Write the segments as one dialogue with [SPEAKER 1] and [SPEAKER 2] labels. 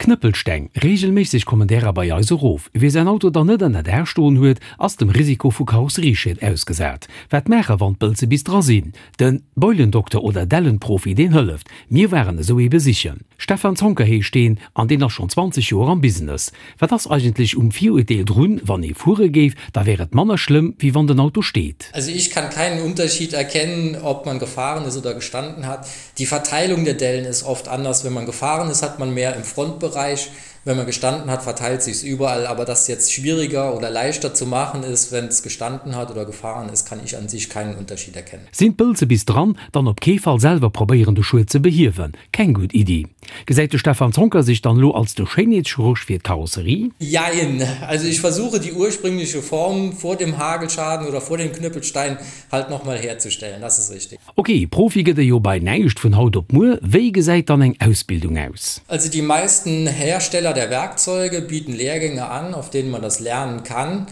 [SPEAKER 1] Knëppelsteng, Reegelméisseg kommen därer bei eis erof. Wie säin Auto dann net ënner Daach stoen huet, ass dem Risiko vu Karosserieschäd ausgesat. Wat maache wann d'Bëlze bis dra sinn? Den Beulendokter oder Dellenprofi deen hëlleft. Mir waren esou ee besichen. Stefan Zoncker heescht deen an deen ass schonn 20 Joer am Business. Wat ass eigentlech um Virurteel drun, wann ee fuere géif, da wär et manner schlëmm wéi wann den Auto steet?
[SPEAKER 2] Also ich kann keinen Unterschied erkennen, ob man gefahren ist oder gestanden hat. Die Verteilung der Dellen ist oft anders. Wenn man gefahren ist, hat man mehr im Frontbereich. Wenn man gestanden hat, verteilt sich's überall. Aber dass jetzt schwieriger oder leichter zu machen ist, wenn es gestanden hat oder gefahren ist, kann ich an sich keinen Unterschied erkennen.
[SPEAKER 1] Sinn d'Bëlze bis dran, dann op kee Fall selwer probéieren de Schued ze behiewen. Keng gutt Iddi. Gesäit de Stefan Zoncker sech dann elo als de Schéinheetschirurg fir d'Karosserie?
[SPEAKER 2] Jein. Also ich versuche die ursprüngliche Form vor dem Hagelschaden oder vor dem Knüppelstein halt nochmal herzustellen, das ist richtig.
[SPEAKER 1] Ok, Profi gëtt e jo bei näischt vun haut op muer. Wéi gesäit dann eng Ausbildung aus?
[SPEAKER 2] Also die meisten Hersteller der Werkzeuge bieten Lehrgänge an, auf denen man das lernen kann.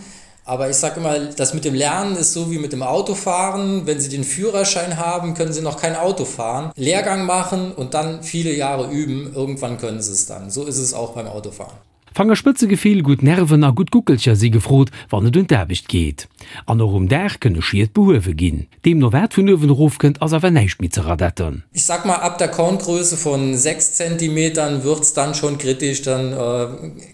[SPEAKER 2] Aber ich sage immer, das mit dem Lernen ist so wie mit dem Autofahren. Wenn Sie den Führerschein haben, können Sie noch kein Auto fahren. Lehrgang machen und dann viele Jahre üben, irgendwann können Sie es dann. So ist es auch beim Autofahren.
[SPEAKER 1] Fangerspëtzegefill, gutt Nerven a gutt Guckelcher si gefrot, wann et un d'Aarbecht geet. An och um Daach kënne Schied behuewe ginn. Deemno wat vun uewen erof kënnt, ass awer näischt méi ze radetten.
[SPEAKER 2] Ich sag mal, ab der Korngröße von 6 Zentimetern wird's dann schon kritisch, dann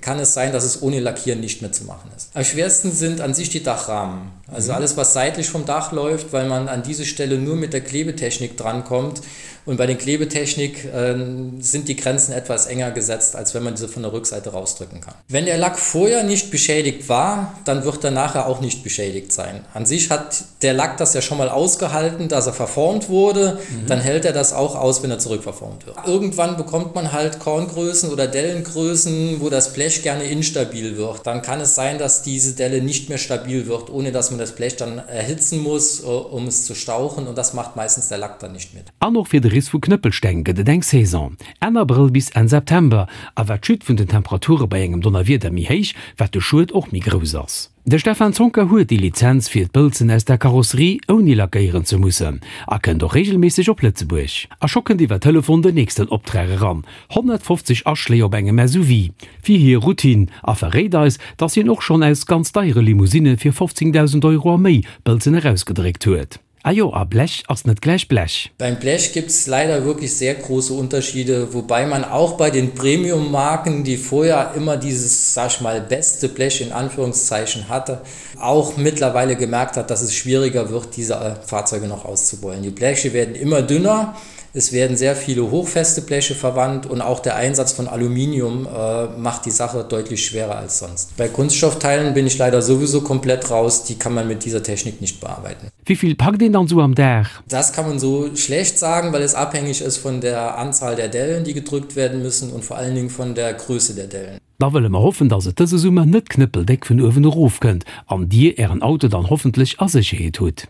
[SPEAKER 2] kann es sein, dass es ohne Lackieren nicht mehr zu machen ist. Am schwersten sind an sich die Dachrahmen. Also alles, was seitlich vom Dach läuft, weil man an diese Stelle nur mit der Klebetechnik drankommt. Und bei den Klebetechnik äh, sind die Grenzen etwas enger gesetzt, als wenn man diese von der Rückseite rausdrücken kann. Wenn der Lack vorher nicht beschädigt war, dann wird er nachher auch nicht beschädigt sein. An sich hat der Lack das ja schon mal ausgehalten, dass er verformt wurde, mhm. dann hält er das auch aus, wenn er zurückverformt wird. Irgendwann bekommt man halt Korngrößen oder Dellengrößen, wo das Blech gerne instabil wird. Dann kann es sein, dass diese Delle nicht mehr stabil wird, ohne dass man das Blech dann erhitzen muss, äh, um es zu stauchen und das macht meistens der Lack dann nicht mit.
[SPEAKER 1] An och fir de Riss vu Knëppelsteng gëtt et eng Saison, Enn Abrëll bis Enn September, a wat d'Chute vun den Temperature bei engem Donnerwieder méi héich, wat de Schued och méi grouss ass. De Stefan Zoncker huet déi Lizenz fir d'Bëlzen aus der Karosserie ouni lackéieren ze mussen a kënnt och reegelméisseg op Lëtzebuerg. A scho kënnt iwwer Telefon den nächsten Optrag eran, 150 Aschléi op engem SUV fir hir Routine, a verréit eis, dass hien och schonn aus ganz deiere Limousinne fir 15.000 Euro a méi Bëlzen erausgedréckt huet. Ah jo, a Blech ass net gläich Blech.
[SPEAKER 2] Beim Blech gibt es leider wirklich sehr große Unterschiede, wobei man auch bei den Premium-Marken, die vorher immer dieses, sag ich mal, beste Blech in Anführungszeichen hatte, auch mittlerweile gemerkt hat, dass es schwieriger wird, diese äh, Fahrzeuge noch auszubeulen. Die Bleche werden immer dünner. Es werden sehr viele hochfeste Bleche verwandt und auch der Einsatz von Aluminium äh, macht die Sache deutlich schwerer als sonst. Bei Kunststoffteilen bin ich leider sowieso komplett raus, die kann man mit dieser Technik nicht bearbeiten.
[SPEAKER 1] Wéi vill packt een dann sou am Dag?
[SPEAKER 2] Das kann man so schlecht sagen, weil es abhängig ist von der Anzahl der Dellen, die gedrückt werden müssen und vor allen Dingen von der Größe der Dellen.
[SPEAKER 1] Da wëlle mer hoffen, dass et dëse Summer net knëppeldéck vun uewen erof kënnt an Dir Ären Auto dann hoffentlech a Sécherheet hutt.